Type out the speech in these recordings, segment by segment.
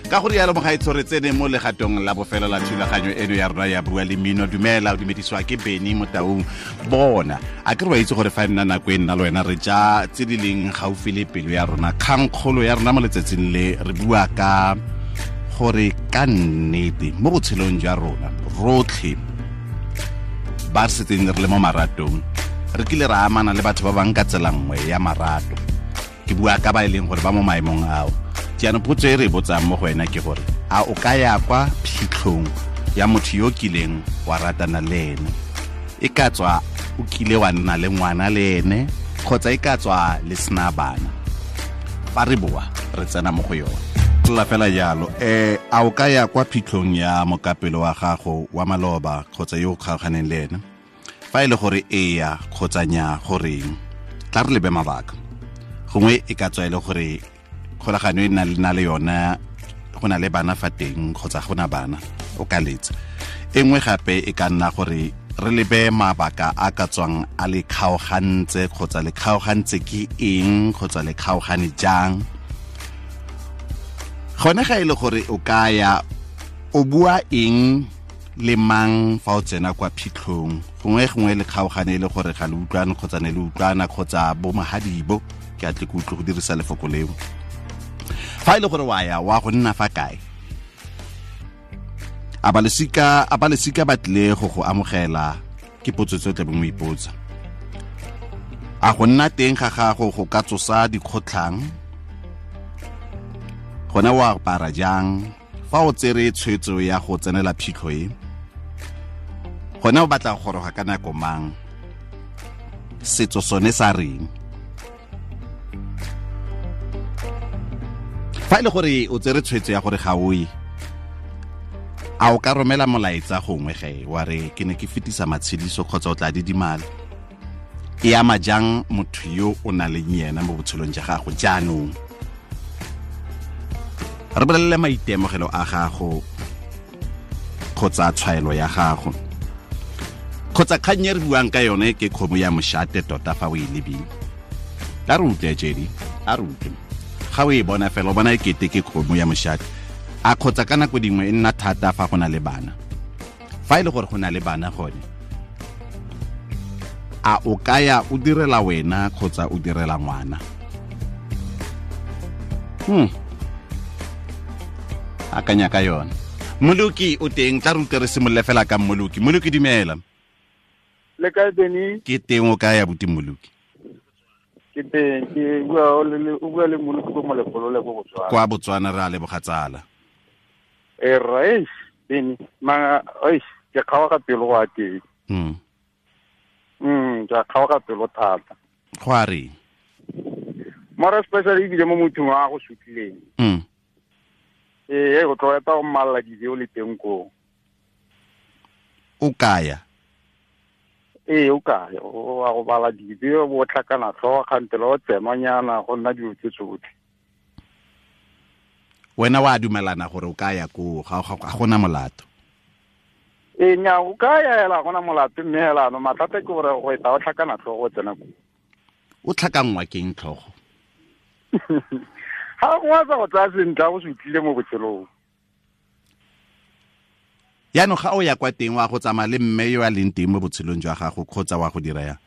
Ka gore yalo mogaetsho, re tsene mo legatong la bofelo la thulaganyo eno ya rona ya Bua le Mmino. Dumela, o dumedisiwa ke Beny Motaung. Bona, a ke re wa itse gore fa e nna nako e nna le wena re ja tse di leng gaufi le pelo ya rona. Kgangkgolo ya rona mo letsatsing le, re bua ka gore ka nnete mo botshelong jwa rona rotlhe ba re setseng re le mo maratong, re kile ra amana le batho ba bang ka tsela nngwe ya marato. Ke bua ka ba e leng gore ba mo maemong ao. Jaanong potso e re e botsang mo go wena ke gore a o ka ya kwa phitlhong ya motho yo kileng wa ratana le ene, e ka tswa o kile wa nna le ngwana le ene kgotsa e ka tswa le sena bana. Fa re boa re tsena mo go yone la fela jalo. A o ka ya kwa phitlhong ya mokapelo wa gago wa maloba kgotsa yo o kgaoganeng le ene? Fa e le gore eya kgotsa nya, goreng? Tla re lebe mabaka. Gongwe e ka tswa e le gore kgolagano e na le yona go na le bana fa teng kgotsa go na bana, o ka letsa. E nngwe gape e ka nna gore re lebe mabaka a ka tswang a le kgaogantse, kgotsa le kgaogantse ke eng, kgotsa le kgaogane jang. Gone ga e le gore o ka ya, o bua eng le mang fa o tsena kwa phitlhong? Gongwe le kgaogane e le gore ga le utlwane, kgotsa ne le utlwana, kgotsa bo mahadibo, ke a tle ke utlwe go dirisa lefoko leo. Fa e le gore wa ya, wa go nna fa kae? A ba lesika ba tlile go go amogela? Ke potso tse o tlabeng o ipotsa. A go nna teng ga gago go ka tsosa dikgotlhang? Gone o apara jang fa o tsere tshwetso ya go tsenela phitlho e? Gone o batla go goroga ka nako mang? Setso sone sa reng? Fa e le gore o tsere tshwetso ya gore ga o ye, a o ka romela molaetsa gongwe ge wa re ke ne ke fetisa matshediso, kgotsa o tla didimala? E ama jang motho yo o nang le yena mo botshelong jwa gago? Jaanong re bolelele maitemogelo a gago kgotsa tshwaelo ya gago kgotsa kgang e re buang ka yone ke kgomo ya moshate tota fa o e lebile. A re utlwe, Jedi, a re utlwe. Ga o e bona fela o bona e kete ke kgomo ya moshate, a kgotsa ka nako dingwe e nna thata fa go na le bana. Fa e le gore go na le bana gone, a o ka ya o direla wena kgotsa o direla ngwana? Akanya ka yone. Moloki o teng, tla re utlwe, re simolole fela ka Moloki. Moloki, dumela. Le kae, Beny? Ke teng, o kae abuti Moloki? Ke teng, ke bua o bua le Moloki ko Molepolole ko Botswana. Kwa Botswana, re a leboga tsala. E rra, eish, Beny, ma eish, ke kgaoga pelo go a teng. Ke a kgaoga pelo thata. Go a reng? Mara especially ebile mo mothong a go sutlileng. Ee, go tlo eta go mmalla dijo le teng koo. O kaya? Ee, o kaya, o a go bala dijo, bo tlhakana tlhogo kgantele o tsenwanyana go nna dilo tse tsotlhe. Wena wa dumelana gore o kaya koo, ga gona molato? Ee, nya, o ka ya hela, gona molato, mme hela no mathata ke gore go eta o tlhakana tlhogo o tsena koo. O tlhakanngwa keng tlhogo? Ga go sa go tsaya sentle, go se utlwile mo botshelong. Yaanong ga o ya kwa teng, wa go tsamaya le mme yo a leng teng mo botshelong jwa gago kgotsa wa go dira yang?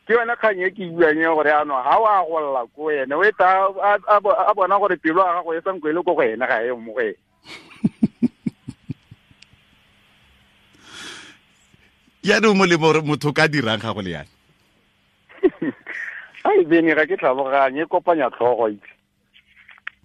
Ke yone kgang e ke buang e gore yaanong ga o a golla ko ene, o eta a bona gore pelo ya gago e sanko e le ko go ene, ga e mo go ene. Yaanong molemo gore motho o ka dirang ga go le yana? Ai Beny, ga ke tlhaloganye, e kopanya tlhogo itse.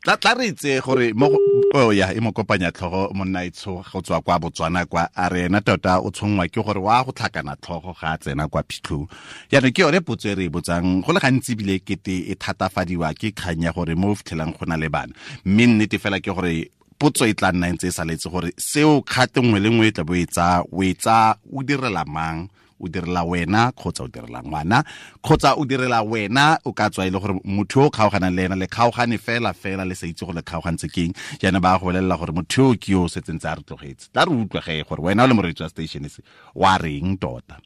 Tla re itse gore mo oh ya e mo kopanya tlhogo monna itsho go tswa kwa Botswana kwa, a re ena tota o tshongwa ke gore wa go tlhakana tlhogo ga a tsena kwa phitlhong. Jaanong ke yone potso e re e botsang go le gantsi, ebile kete e thatafadiwa ke kgang ya gore mo o fitlhelang go na le bana, mme nnete fela ke gore potso e tla nna ntse e saletse gore seo kgate nngwe le nngwe e tla bo e tsaya, o e tsaya o direla mang? O direla wena kgotsa o direla ngwana? Kgotsa o direla wena, o ka tswa e le gore motho o kgaoganang le ena le kgaogane fela fela le sa itse gore le kgaogantse keng, jaana ba go bolelela gore motho yo ke yo o setseng tse a re tlogetse. Tla re utlwe ge gore wena o le moreetsi wa station se wa reng tota.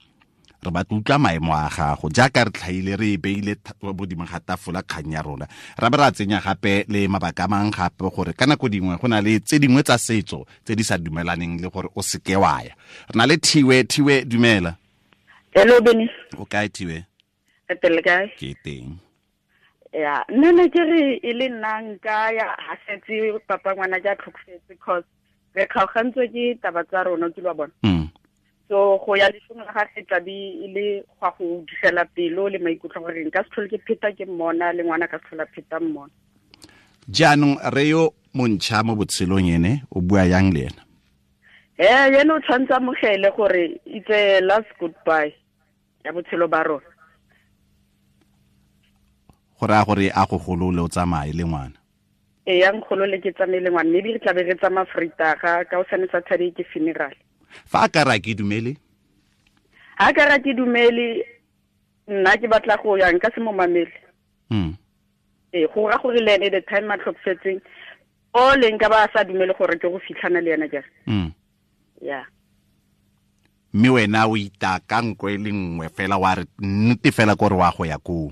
Re batla utlwa maemo a gago jaaka re tlhaile re e beile bodimo ga tafola kgang ya rona, ra be ra tsenya gape le mabaka a mang gape gore ka nako dingwe go na le tse dingwe tsa setso tse di sa dumelaneng le gore o seke wa ya. Re na le Thiwe. Thiwe, dumela. Hello, Benny. O kae, Thiwe? Re teng kae? Ke teng. Ya, nna ne ke re e le nna nka ya ha setse papa ngwana ja tlhokofetse, cause re kgaogantswe ke taba tsa rona, ke lwa bona. So go ya leshong la gagwe tla be e le gwa go digela pelo le maikutlo gore nka se tlhole ke pheta ke mmona, le ngwana ka se tlhola pheta mmona. Jaanong re yo montšha mo botshelong ene o bua yang le ena? Ene o tshwanetse amogele gore it's a last goodbye ya botshelo ba rona. Go raya gore a go golole o tsamaye le ngwana? Ee, ya nkgolole ke tsamaye le ngwana, maybe re tla be re tsamaya Vrydag, ka hosane Saturday ke funeral. Fa a ka re a ke dumele? Ha ka re a ke dumele, nna ke batla go ya, nka se mo mamele. Ee, go ra gore le ene the time a tlhokofetseng, o leng ka ba a sa dumele gore ke go fitlhana le ena jang. Ya. Mme wena o itaka nko e le nngwe fela wa re nnete fela kore wa go ya koo.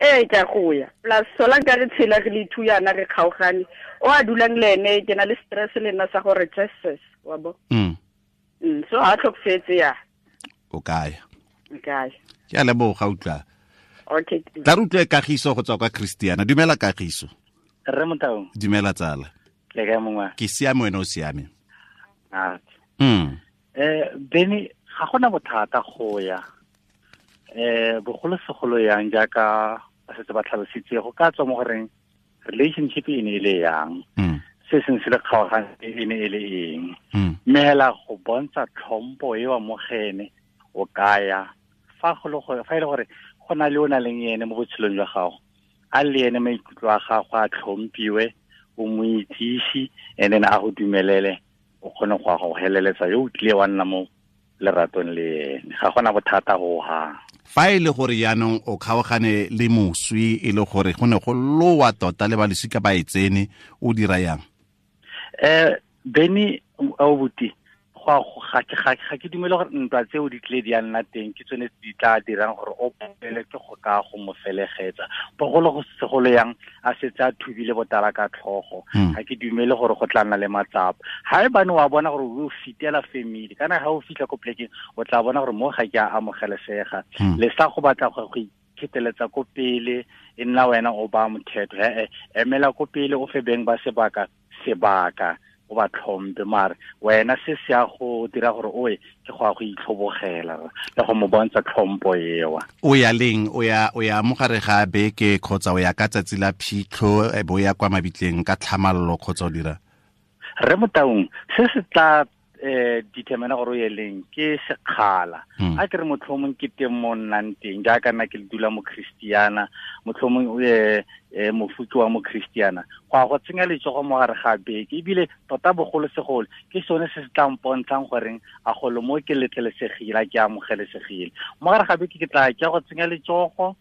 Ee, ke a go ya. Plus sola nka re tshela re le two yana re kgaogane. O a dulang le ene, ke na le stress le nna sa gore Jesus, wa bo. So ha tlhokofetse ya. O kae? Nka ya. Ke a leboga, utlwa. Okay. Tla re utlwe Kagiso go tswa kwa Christiana. Dumela Kagiso. Rre Motaung. Dumela tsala. Le kae mongwe? Ke siame, wena o siame? Ah. Benny, ga gona bothata go ya. Bogolo segolo yang jaaka ba setse ba tlhalositse, go ka tswa mo goreng relationship e ne e le yang. Se seng se le kgaogane e ne e le eng. Mme hela go bontsha tlhompo e wa mogene o kaya fa go le gore, fa e le gore go na le o na leng ene mo botshelong jwa gago, a le ene maikutlo a gago a tlhomphiwe, o mo itsise, and then a go dumelele o kgone go ya go heleletsa yo o tlile wa nna mo leratong le ene. Ga gona bothata ho hang. Fa e le gore jaanong o kgaogane le moswi, e le gore go ne go lowa tota le ba losika ba e tsene, o dira yang? Benny, abuti, ga ke dumele gore ntwa tseo di tlile di a nna teng, ke tsone tse di tla dirang gore o palelwe ke go ka go mo felegetsa. Bogolo go segolo yang a setse a thubile botala ka tlhogo, ga ke dumele gore go tla nna le matsapa. Ha e bane wa bona gore o fitela family, kana ha o fitlha ko plekeng o tla bona gore mo ga ke a amogelesega. Le sa go batla go ikheteletsa ko pele, e nna wena o ba mothetho. Emela ko pele o fe beng ba sebaka, sebaka o ba tlhompe, mare wena se se ya go dira gore oe ke go ya go itlhobogela le go mo bontsha tlhompo ewa. O ya leng? O ya mo gare ga beke kgotsa o ya ka tsatsi la phitlho, e bo ya kwa mabitleng ka tlhamallo kgotsa o dira? Rre Motaung, se se tla determine gore o ye leng ke sekgala. A ke re motlhomong ke teng mo nnang teng, jaaka nna ke dula mo Christiana, motlhomong o ye mofuki wa mo Christiana, go ya go tsenya letsogo mo gare ga beke, ebile tota bogolosegolo ke sone se se tla mpontshang goreng a golo mo ke letlelesegile, a ke amogelesegile. Mo gare ga beke ke tla ke ya go tsenya letsogo,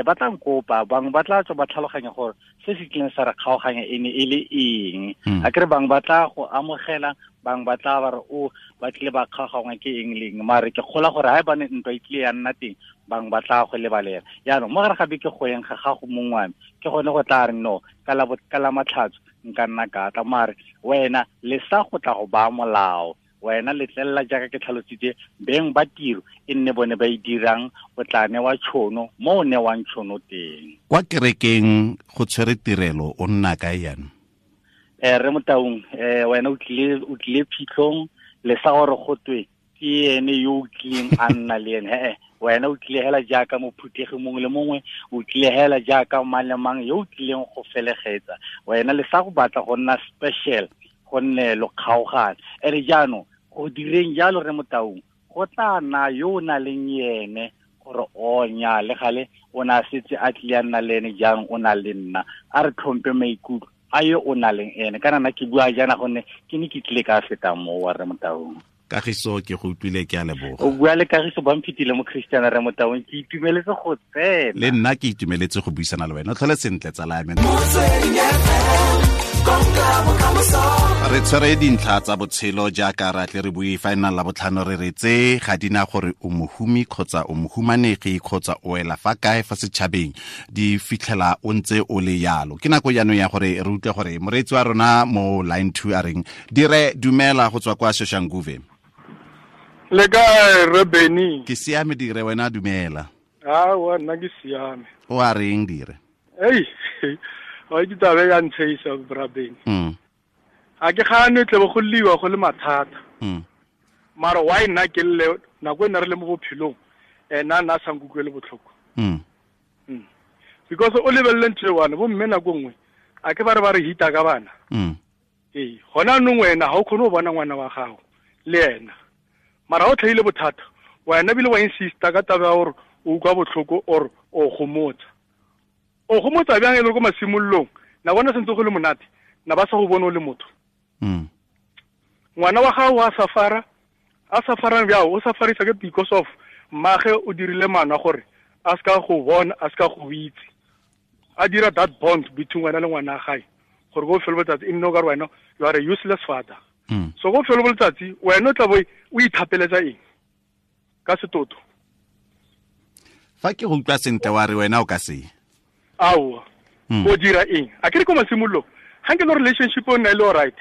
ba tla nkopa, bangwe ba tla tswa ba tlhaloganya gore se se tlileng sa re kgaoganya e ne e le eng. A ke re bangwe ba tla go amogela, bangwe ba tla ba re o ba tlile ba kgaogangwa ke eng le eng, mare ke kgola gore ha e bane ntwa e tlile ya nna teng, bangwe ba tla go lebalela. Jaanong mo gare ga beke go yeng ga gago mongwe wa me, ke gone go tla re no, ka la matlhatso nka nna ka tla, mare wena le sa go tla go baya molao, wena letlelela jaaka ke tlhalositse, beng ba tiro e nne bone ba e dirang, o tla newa tšhono mo o newang tšhono teng. Kwa kerekeng go tshwere tirelo, o nna kae jaanong? Rre Motaung, wena o tlile phitlhong, le sa gore go twe ke ene yo o tlileng a nna le ene. Wena o tlile hela jaaka mophuthegi mongwe le mongwe, o tlile hela jaaka mang le mang yo o tlileng go felegetsa. Wena le sa go batla go nna special, gonne lo kgaogane. Ene jaanong go direng jalo Rre Motaung, go tla nna yo o na leng ene gore o nya le gale o na setse a tlile a nna le ene, jaanong o na le nna, a re tlhompe maikutlo a yo o na leng ene. Kana nna ke bua jaana gonne ke ne ke tlile ka feta moo wa Rre Motaung. Kagiso, ke go utlwile, ke a leboga. O bua le Kagiso, ba mphitile mo Christiana Rre Motaung, ke itumeletse go tsena. Le nna ke itumeletse go buisana le wena. O tlhole sentle, tsala ya me. Re tshwere dintlha tsa botshelo jaaka ra tle re bue fa e nna la botlhano re re tse ga di na gore o mohumi kgotsa o mohumanegi kgotsa o wela fa kae fa setšhabeng, di fitlhela o ntse o le yalo. Ke nako jaanong ya gore re utlwe gore moreetsi wa rona mo line 2 a reng. Dire, dumela go tswa kwa Soshanguve. Le kae, re Benny? Ke siame Dire, wena dumela. Aowa, nna ke siame. O a reng Dire? Ei, wa itse taba ya ntsheisa, bra Benny. A ke gane tle bo go liwa go le mathata. Mara why nna ke lle nako e nna re le mo bophelong, ena nna sa nkutlwele botlhoko. Because o lebelele ntho e one, bo mme nako nngwe a ke ba re ba re hita ka bana. Ee, gona anong wena ga o kgone go bona ngwana wa gago le ena. Mara o tlhaile bothata, wena bile wa insista ka taba ya gore o utlwa botlhoko or o gomotsa. O gomotsa bjang e le ko masimololong, na bona sentse go le monate, na ba sa go bone o le motho. Ngwana wa gago a safara, a safarang bjao, o safarisa ke because of mmage o dirile maano a gore a seka go bona, a seka go itse. A dira that bond between wena le ngwana wa gae, gore ko felo letsatsi e nne o ka re wena you are a useless father. So ko felo letsatsi wena o tla bo o ithapeletsa eng ka setoto? Fa ke go utlwa sentle wa re wena o ka se. Aowa. O dira eng? A ke re ko masimololong, ga nke le relationship o nna e le all right,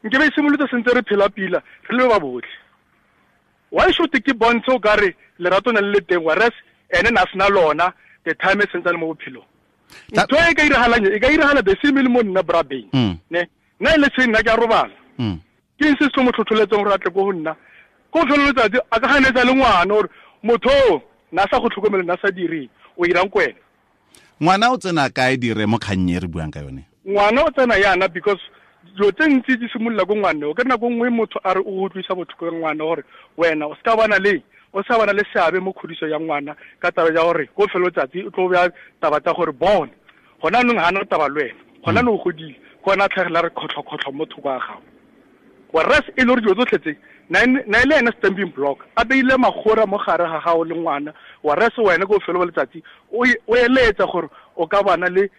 nke be e simolotse sentse re phela pila, re le ba botlhe. Why should ke bontshe o ka re lerato na le le teng, whereas ene na sena lona the time e sentse le mo bophelong. Ntho e ka iragalang, e ka iragala the same le mo nna bra Beng. Ne? Nna e le seng nna ke a robala. Ke eng se se mo tlhotlheletseng gore a tle ko go nna? Ko felo letsatsi a ka ganetsa le ngwana gore motho o na sa go tlhokomele, na sa direng, o irang ko wena? Ngwana o tsena kae Dire mo kgang e re buang ka yone? Ngwana o tsena yana because dilo tse ntsi di simolola ko ngwaneng. O ka nako nngwe motho a re o utlwisa botlhoko ka ngwana gore wena o seka bana le, o sa bana le seabe mo kgodiso ya ngwana ka taba ya gore ko felo letsatsi o tlo bea taba tsa gore bone gona anong ga ana taba le wena, gona anong o godile, ke ona a tlhagela re kgotlho-kgotlho mo thoko a gago. Whereas e le gore dilo tsotlhe tse na e le ena stamping block, a beile magora mo gare ga gago le ngwana, whereas wena ko felo letsatsi o eletsa gore o ka bana le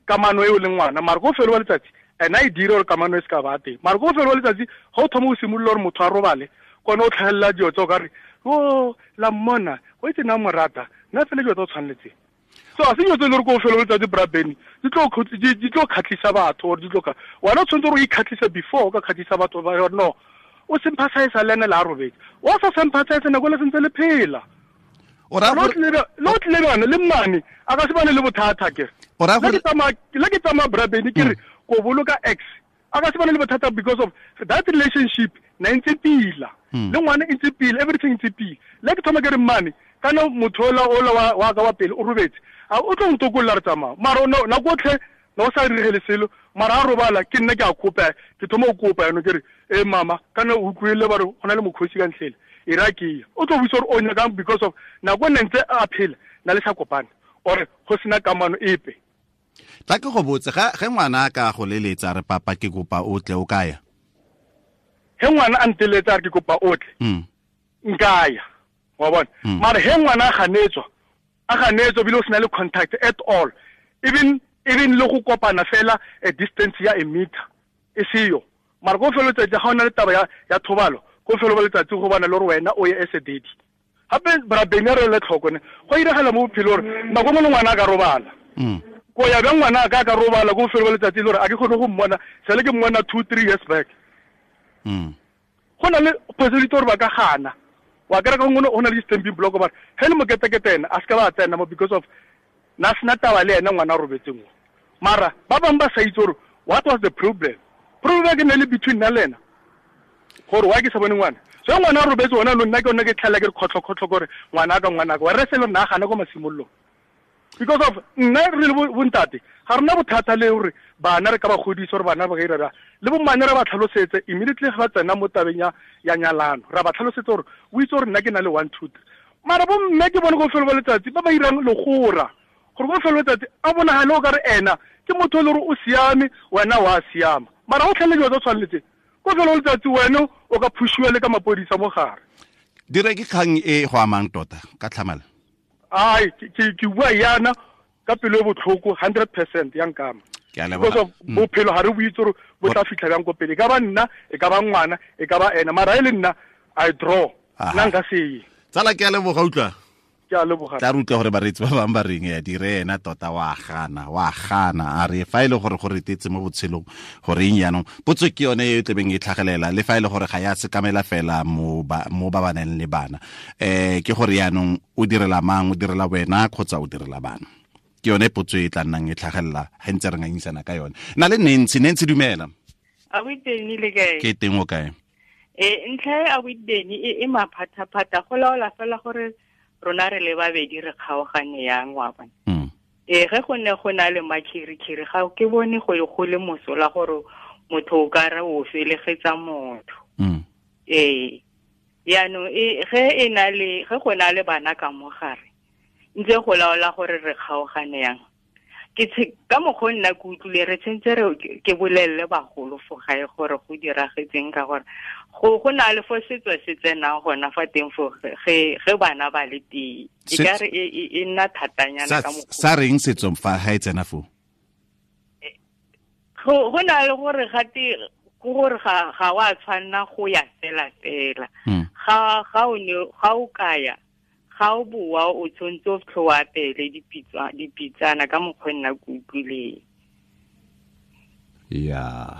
kamano eo le ngwana, mara ko felo letsatsi ena e dire gore kamano e se ka ba teng. Mara ko felo letsatsi ga o thoma go simolola gore motho a robale, kone o tlhagelela dilo tse o ka re o la mmona, o itse nna mo rata, nna fela dilo tse o tshwaneletseng. So a se dilo tse e le gore ko felo letsatsi bra Benny di tlo kgatlhisa batho, or di tlo ka wena o tshwanetse gore o ikgatlhise before o ka kgatlhisa batho ba gore no o sympathize le ene le a robetse. O sa sympathize nako le sentse le phela. Le o tlile bana le mmane a ka se bane le bothata ke. Le ke tsamaya bra Benny ke re ko boloka ex a ka se bane le bothata because of that relationship na ntse pila. Le ngwana e ntse pila, everything ntse pila. Le ke thoma ke re mmane kana motho ola wa ka wa pele o robetse, a o tlo ntokolla re tsamaya. Mara nako otlhe na o sa diregele selo, mara a robala ke nna ke a kopa, ke thoma go kopa yanong ke re e mama kana o utlwile ba re go na le mokgosi ka ntlhele, e ra ke ya. O tlo buisa gore o nyakang because of nako e nne ntse a phela na le sa kopane or go sena kamano epe. Tla ke go botse, ge ngwana a ka go leletsa re papa ke kopa o tle, o ka ya? Ge ngwana a nteletsa a re ke kopa o tle, nka ya, wa bona. Mara ge ngwana a ganetswa ebile o sena le contact at all, even le go kopana fela a distance ya a meter e seyo. Mara ko felo letsatsi ga o na le taba ya thobalo, ko felo letsatsi go bana le gore wena o ye as a daddy. Gape bra Benny a re le tlhoko ne, go iragala mo bophelo gore nako nngwe le ngwana a ka robala. Ko ya bjang ngwana a ka ka robala ko felo letsatsi le gore a ke kgone go mmona, sale ke mmona 2-3 years back. Go na le possibility gore ba ka gana. Wa kry-a ka gongwe go na le di-stamping block ba re ge le moketekete ena a se ka ba tsena mo because of na sena taba le ena ngwana a robetseng o. Mara ba bangwe ba sa itse gore what was the problem. Problem ke ne le between nna le ena gore why ke sa bone ngwana. So ngwana a robetse ona no nna ke ona ke tlhalela ke re kgotlho-kgotlho gore ngwana ka ngwana ka, whereas e le nna a gana ko masimololong. Because of nna re le bontate ga rena bothata le gore bana re ka ba godisa gore bana ba ka ira le bommane re ba tlhalosetse immediately ga ba tsena mo tabeng ya nyalano, ra ba tlhalosetse gore o itse gore nna ke na le 1 2 3. Mara bomme ke bone go felo letsatsi ba ba irang legora gore go felo letsatsi a bonagale o ka re ena ke motho e le gore o siame, wena wa siama, mara o tlhele dilo tse tshwaneletseng ko felo letsatsi wena o ka phushiwa le ka mapodisa mo gare. Dire ke kgang e go amang tota ka tlhamala. Ai, ke bua yana ka pelo e botlhoko 100% ya nkama. Because of bophelo ga re bo itse gore bo tla fitlha bjang ko pele. E ka ba nna, e ka ba ngwana, e ka ba ena. Mara e le nna, I draw. Nna nka se ye. Tsala ke a leboga utlwa. Ke a leboga. Tla re utlwa gore bareetsi ba bangwe ba reng ya dire ena tota wa gana, a re fa e le gore go retetse mo botshelong gore eng jaanong. Potso ke yone e tlebeng e tlhagelela le fa e le gore ga ya sekamela fela mo ba ba nang le bana. Ke gore jaanong o direla mang, o direla wena kgotsa o direla bana. Ke yone potso e tla nnang e tlhagelela ga ntse re ngangisana ka yone. Na le Nancy, Nancy dumela. A o teng le kae? Ke teng o kae? Ntlha e a o teng e maphathaphatha go laola fela gore rona re le babedi re kgaogane yang wa bona. Ge go ne go na le makhirikhiri ga ke bone go le mosola gore motho o ka re o felegetsa motho. Yaanong ge e na le ge go na le bana ka mo gare ntse go laola gore re kgaogane yang. Ke ka mokgwa nna ke utlwile re tshwantse re ke bolelele bagolo fo gae gore go diragetseng ka gore go na le fo setso se tsenang gona fa teng fo ge bana ba le teng. E ka re e nna thatanyana ka mokgwa. Sa reng setso fa ga e tsena fo? Go na le gore gate gore ga wa tshwanna go ya fela fela. Ga o kaya ga o boa o tshwanetse o fitlhe o apele dipitsana ka mokgwa nna ke utlwileng. Ya.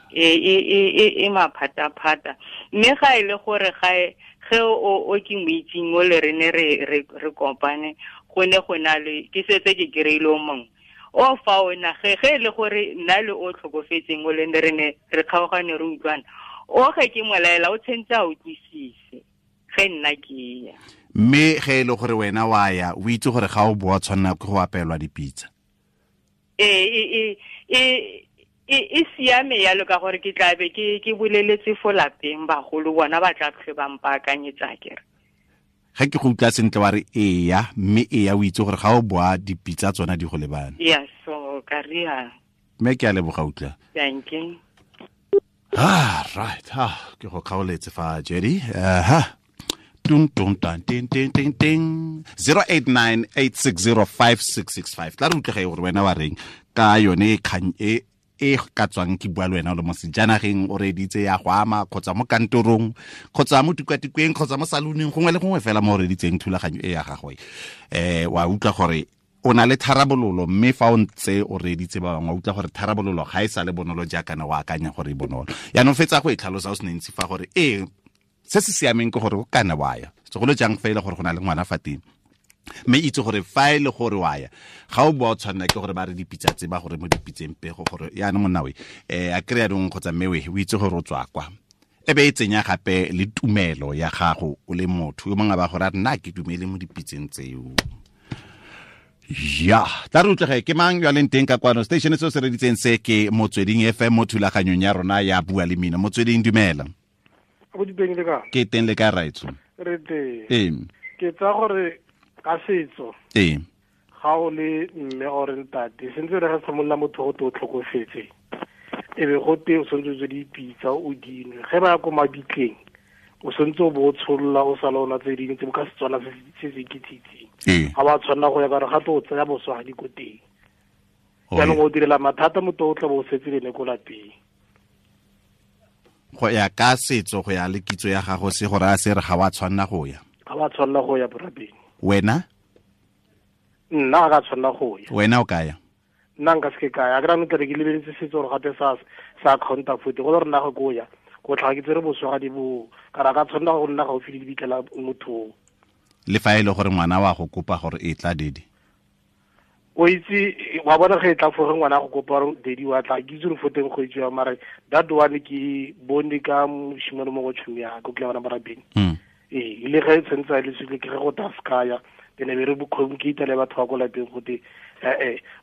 E maphataphata. Mme ga e le gore ge o ke mo itseng o le re ne re kopane go ne go na le ke setse ke kry-ile o mongwe. O fa ona ge e le gore nna le o tlhokofetseng o le ne re ne re kgaogane re utlwana. O ge ke molaela o tshwanetse a utlwisise ge nna ke ya. Mme ge e le gore wena wa ya o itse gore ga o boa tshwanela ke go apelwa dipitsa. E siame yalo ka gore ke tla be ke boleletse fo lapeng bagolo bona ba tla tlhe ba mpaakanyetsa kere. Ga ke go utlwa sentle wa re eya, mme eya o itse gore ga o boa dipitsa tsona di go lebane. Ya so ka ria. Mme ke a leboga utlwa. Thank you. Right. Ke go kgaoletse fa Jerry. Tung tung tan ting ting ting ting 0898605665. Tla re utlwe gore wena wa reng ka yone kgang e ka tswang ke bua le wena o le mo sejanageng o reditse ya go ama kgotsa mo kantorong kgotsa mo tikwatikweng kgotsa mo saloneng gongwe le gongwe fela mo o reditseng thulaganyo e ya gagwe. Wa utlwa gore o na le tharabololo mme fa o ntse o reditse ba bangwe wa utlwa gore tharabololo ga e sa le bonolo jaaka ne o akanya gore e bonolo. Yaanong fetsa go e tlhalosa o se ntsi fa gore se se siameng ke gore o kana wa ya segolo jang fa e le gore go na le ngwana fa teng mme itse gore fa e le gore wa ya ga o boa o tshwanela ke gore ba re dipitsa tse ba gore mo dipitseng pego gore yaanong monna we a kry-a dong kgotsa mme we o itse gore o tswa kwa e be e tsenya gape le tumelo ya gago o le motho yo mongwe ba gore a re nna ke dumele mo dipitseng tseo. Ya, tla re utlwege ke mang yo a leng teng ka kwano station se o se reditseng se ke Motsweding FM mo thulaganyong ya rona ya Bua le Mmino. Motsweding dumela. Ke teng le ka raitso. Re teng. Ke tsa gore ka setso. Ga o le mme or ntate, sentse re ga tshimolla motho go to tlhokofetse. E be go te o sentse o dipitsa o dinwe. Ge ba ya ko mabitleng, o sentse o bo tsholola o sala ona tse dingwe tse ka Setswana se se kitsitseng. Ga ba tshwanela go ya ka re gape o tsaya boswagadi ko teng. Jaanong o direla mathata motho o tla bo o setse le ne ko lapeng. Go ya ka setso go ya le kitso ya gago se gore a se re ga wa tshwanela go ya. Ga wa tshwanela go ya borabeng. Wena? Nna ga tshwanela go ya. Wena o ka ya? Nna nka se ke ka ya. Ke rano tle ke lebeletse setso gore gape sa counter foot go le rena go go ya. Go tlhaga ke tsere boswagadi bo ka ra ka tshwanela go nna gaufi le dibitla motho. Le fa e le gore ngwana wa go kopa gore e tla dedi. O itse wa bona ge e tla fo ge ngwana go kopa gore dedi wa tla ke itse gore fo teng go itse ya mara that one ke bone ka moshimane mo go tšhomi ya ko ke bona barabeng. Le ge tshwantse a le sile ke ge go ta skaya then be re bo communicate le batho ba ko lapeng go te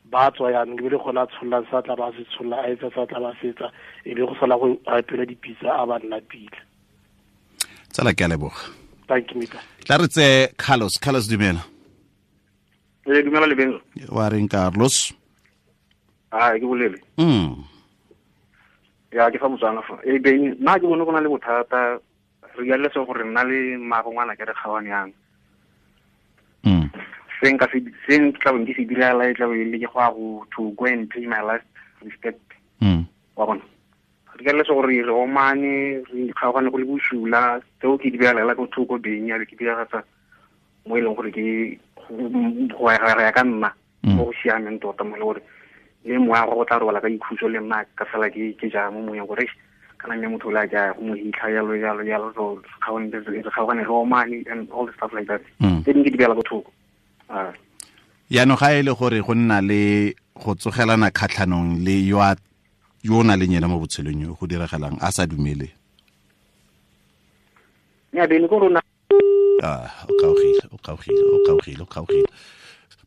ba tswa yanong ke be le gona tsholla sa tla ba se tsholla a etsa sa tla ba setsa e be go sala go apela dipitsa a ba nna pila. Tsala ke a leboga. Thank you Mika. Tla re tse Carlos. Carlos dumela. Dumela le wa reng Carlos? Ke bolele. Ya ke fa Motswana fa. Beng nna ke bone go na le bothata re ya le se gore nna le mmago ngwana ke re kgawane yang. Seng ka se seng tla bong ke se direla e tla be le ke go to go and pay my last Respect. Wa bona. Re ka lesa gore re omane, re kgaogane go le bosula, tseo ke di beela ko thoko beng ya ke diragatsa mo e leng gore ke go ya ka nna mo go siameng tota mo e le gore le moya go tla robala ka ikhutso le nna ka fela ke ja mo moyeng gore kana mme motho o le a ke go mo hitlha jalo jalo jalo, so re kgaogane re omane and all the stuff like that. Tse dingwe ke di beela ko thoko. Yaanong ga e le gore go nna le go tsogelana kgatlhanong le yo o na leng ena mo botshelong yo go diragalang a sa dumele. Nya bene ko rona. O kgaogile.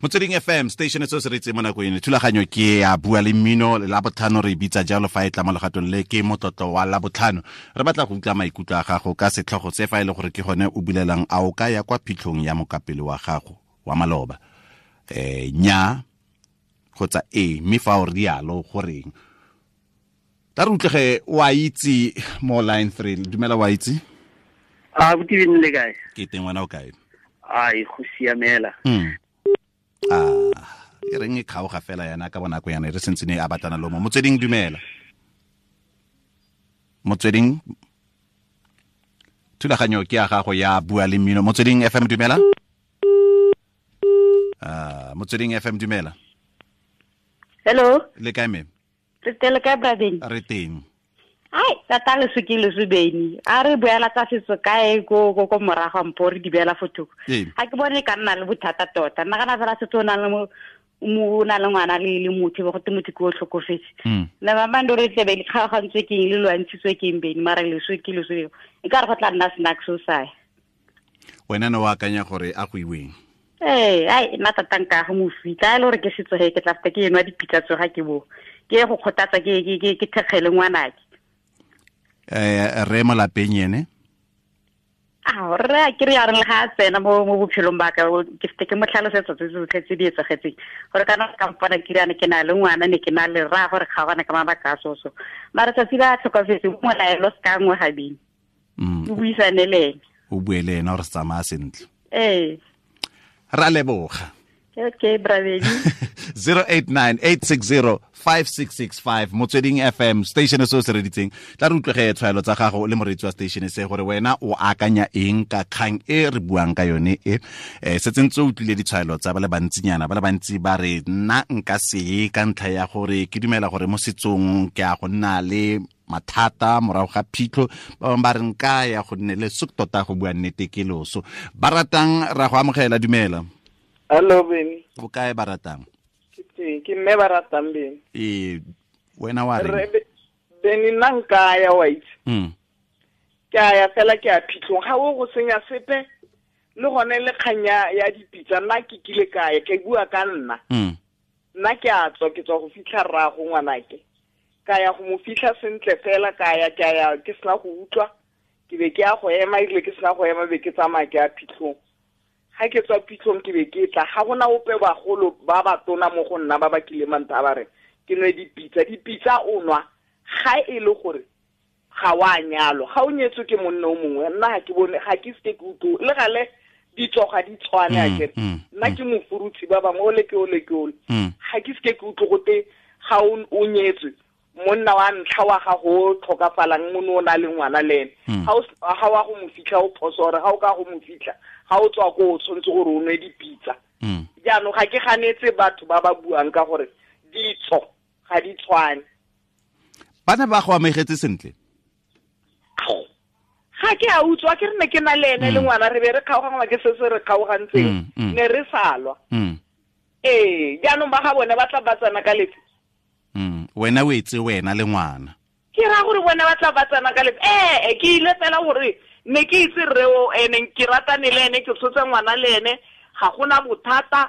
Motsweding FM station se se retse mo nako eno, thulaganyo ke ya Bua le Mmino la botlhano, re bitsa jalo fa e tla mo legatong le ke motlotlo wa la botlhano. Re batla go utlwa maikutlo a gago ka setlhogo se fa e le gore ke gone o bulelang a o ka ya kwa phitlhong ya mokapelo wa gago wa maloba. Nya kgotsa e, mme fa o rialo goreng. Ta re utlwege wa itse mo line 3. Dumela wa itse. A botibeng le kae? Ke teng, wena o kae? Ai, go siamela. E reng e kgaoga fela yana ka bonako yana re sentse ne a batlana le mo. Motsweding dumela. Motsweding thulaganyo ke ya gago ya Bua le Mmino. Motsweding FM dumela. Motsweding FM dumela. Hello. Le kae me? Re teng kae brabeng? Re teng. Ai, tata le sukile subeni. A re boela tsa setso kae go go go morago mpo re di beela fotoko. Ha ke bone ka nna le bothata tota. Nna kana fela setso na le mo na le ngwana le motho bo go te motho ke o tlhokofetse. Le ba bando re tlebe le kgaogantswe ke eng le lwantshitswe ke eng beni mara le sukile subeni. E ka re go tla nna snack so sai. Wena no wa akanya gore a go iweng? Ee, ai nna tata nka go mo fitla le gore ke setso he ke tla feta ke enwa dipitsa tsoga ke bo. Ke go kgothatsa ke ke thekgele ngwanake. Re mo lapeng ene? A re ke re ya re le ga tsena mo bophelong ba ka ke fete ke mo tlhalosetsa tse tsotlhe tse di etsagetseng gore kana ka mpona ke re ke na le ngwana ne ke na le ra gore kgaogana ka mabaka a soso. Mara tsatsi ba tlhokafetse mo laelo se ka nngwe gabedi. O buisane le ene. O bue le ene gore se tsamaya sentle. Ee. Ra leboga. Okay, bravedi. 089-860-5665 Motsweding FM station se o se reditseng. Tla re utlwege tshwaelo tsa gago le moreetsi wa station se gore wena o akanya eng ka kgang e re buang ka yone e. Setse ntse o utlwile ditshwaelo tsa ba le bantsinyana, ba le bantsi ba re nna nka se ka ntlha ya gore ke dumela gore mo setsong ke a go nna le mathata morago ga phitlho, ba bangwe ba re nka ya go nne le suk tota go bua nnete ke loso. Ba ratang ra go amogela, dumela. Hello Beni. O kae ba ratang? Ke teng, ke mme ba ratang Beni. Ee, wena wa reng? Beni nna nka ya wa itse. Ke a ya fela ke a phitlhong, ga o go senya sepe le gone le kganya ya dipitsa nna ke kile kae ke bua ka nna. Nna ke a tswa ke tswa go fitlha rraago ngwanake. Ka ya go mo fitlha sentle fela ka ya ke ya ke sena go utlwa ke be ke ya go ema ebile ke sena go ema be ke tsamaya ke ya phitlhong. Ga ke tswa phitlhong ke be ke tla ga gona ope bagolo ba ba tona mo go nna ba ba kile mantha ba re ke nwe dipitsa. Dipitsa o nwa ga e le gore ga wa nyalwa, ga o nyetswe ke monna o mongwe. Nna ga ke bone ga ke se ke utlwe le gale ditso ga di tshwane a kere nna ke mofurutshi ba bangwe ole ke ole ke ole. Ga ke se ke utlwe gote ga o nyetswe monna wa ntlha wa gago o tlhokafalang mono o na le ngwana le ene, ga wa go mo fitlha o phoso gore ga o ka go mo fitlha ga o tswa ko o tshwanetse gore o nwe dipitsa. Jaanong ga ke ganetse batho ba ba buang ka gore ditso ga di tshwane. Bana ba go amegetse sentle? Ga ke a utswa ke re ne ke na le ene le ngwana re be re kgaogangwa ke se se re kgaogantseng ne re salwa. Ee, jaanong ba ga bone ba tla ba tsena ka lefe. Wena o etse wena le ngwana. Ke ra gore bona ba tla ba tsena ka lefe. Ee, ke ile fela gore ne ke itse rre o ene ke ratane le ene ke tshotse ngwana le ene ga gona bothata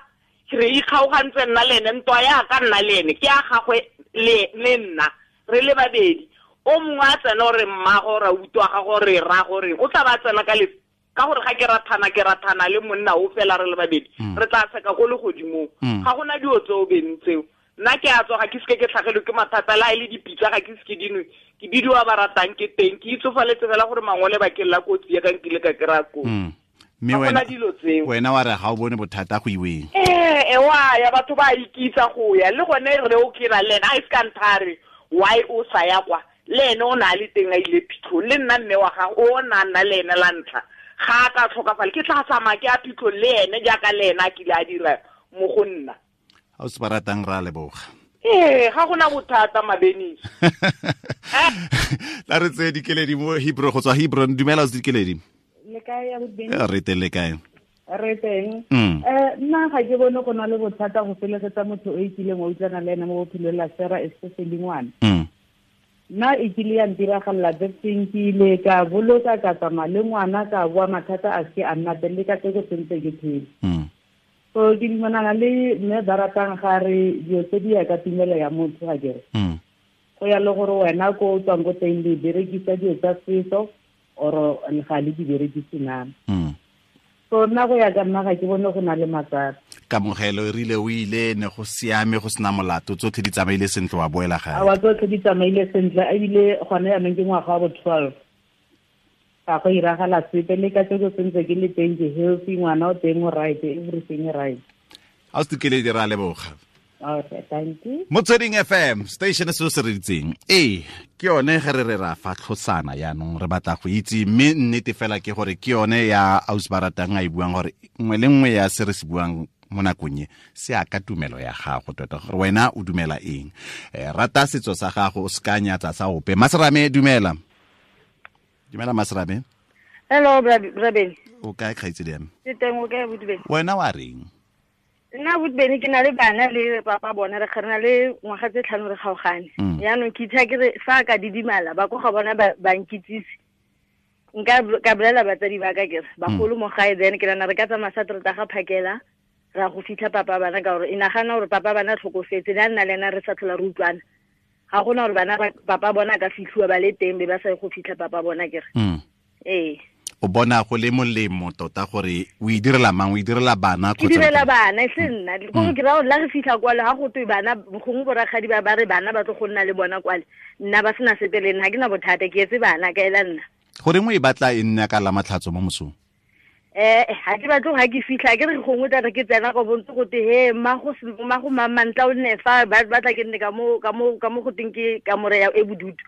re ikgaogantse nna le ene ntwa ya ka nna le ene ke a gagwe le nna re le babedi. O mongwe a tsena gore mmago ra utlwa ga gore ra gore o tla ba tsena ka lefe ka gore ga ke rathana le monna o fela re le babedi re tla seka go le godimong. Ga gona dio tseo beng tseo. Nna ke a tswa ga ke seke ke tlhagelwe ke mathata la e le dipitsa ga ke seke dinwe ke bidiwa ba ratang ke teng ke itsofaletse fela gore mangole bakeng la kotsi ya ka nkile ka kry-a kotsi. Mme wena wena wa re ga o bone bothata go iweng. Ee wa ya batho ba ikitsa go ya le gone re o kira le ena a se ka nthare why o sa ya kwa le ene o na le teng a ile phitlhong le nna mme wa gago o na nna le ene la ntlha ga a ka tlhokafala ke tla tsamaya ke a phitlhong le ene jaaka le ene a kile a dira mo go nna. Ga o se ba ratang ra leboga. Ee ga gona bothata Mabenisi. La re tseye Dikeledi mo Hebron go tswa Hebron. Dumela o se Dikeledi. Le kae ya bobedi? Re teng le kae? Re teng. Nna ga ke bone go na le bothata go felegetsa motho o ikileng wa utlwana le ene mo bophelong la sera especially ngwana. Nna e kile ya ntiragalela thing ke ile ka boloka ka tsamaya le ngwana ka boa mathata a se a nna teng le ka tseko sentse ke phele. So ke dumelana le mme ba ratang ga re dilo tse di ya ka tumelo ya motho ga kere. Go ya le gore wena ko o tswang ko teng le berekisa dilo tsa setso or ga le di berekise na. So nna go ya ka nna ga ke bone go na le matsapa. Kamogelo e rile o ile ne go siame go sena molato tsotlhe di tsamaile sentle wa boela gae. Awa tsotlhe di tsamaile sentle ebile gone yaanong ke ngwaga wa bo 12. Ga go iragala sepe le ka tseko sentse ke le teng ke healthy ngwana o teng o right everything right. A o se kele dira leboga. Okay, thank you. Motsweding FM station se se reditseng. Ee, ke yone ge re re ra fa tlhosana yaanong re batla go itse mme nnete fela ke gore ke yone ya ausi ba ratang a e buang gore nngwe le nngwe ya se re se buang mo nakong e se ya ka tumelo ya gago tota gore wena o dumela eng. Rata setso sa gago o se ka nyatsa sa ope. Maserame dumela. Dumela Maserame. Hello Brabeni. O kae kgaitsedi ya me? Ke teng o kae Botubeni? Wena wa reng? Nna Botubeni ke na le bana le papa bona re kgana le ngwaga tse 5 re kgaogane. Yaanong ke itha ke re fa ka didimala ba ko ga bona ba nkitsise. Nka ka bolela batsadi ba ka ke re bagolo mo gae then ke nana re ka tsamaya sa trata ga phakela ra go fitlha papa bana ka gore e nagana gore papa bana tlhokofetse le nna le ena re sa tlhola re utlwana. Ga gona gore bana papa bona ka fitlhiwa ba le teng be ba sa go fitlha papa bona ke re. Ee. O bona go le molemo tota gore o e direla mang o e direla bana kgotsa? Ke direla bana e se nna. Ko ke ra gore la re fitlha kwale ga go twe bana gongwe borakgadi ba ba re bana ba tlo go nna le bona kwale nna ba sena sepe le nna ga ke na bothata ke etse bana ka ela nna. Goreng o e batla e nna ka la matlhatso mo mosong? Ga ke batle ga ke fitlha ke re gongwe tla re ke tsena go bontse go te he mmago mamantla o nne fa ba batla ke nne ka mo go teng ke kamore ya e bodutu.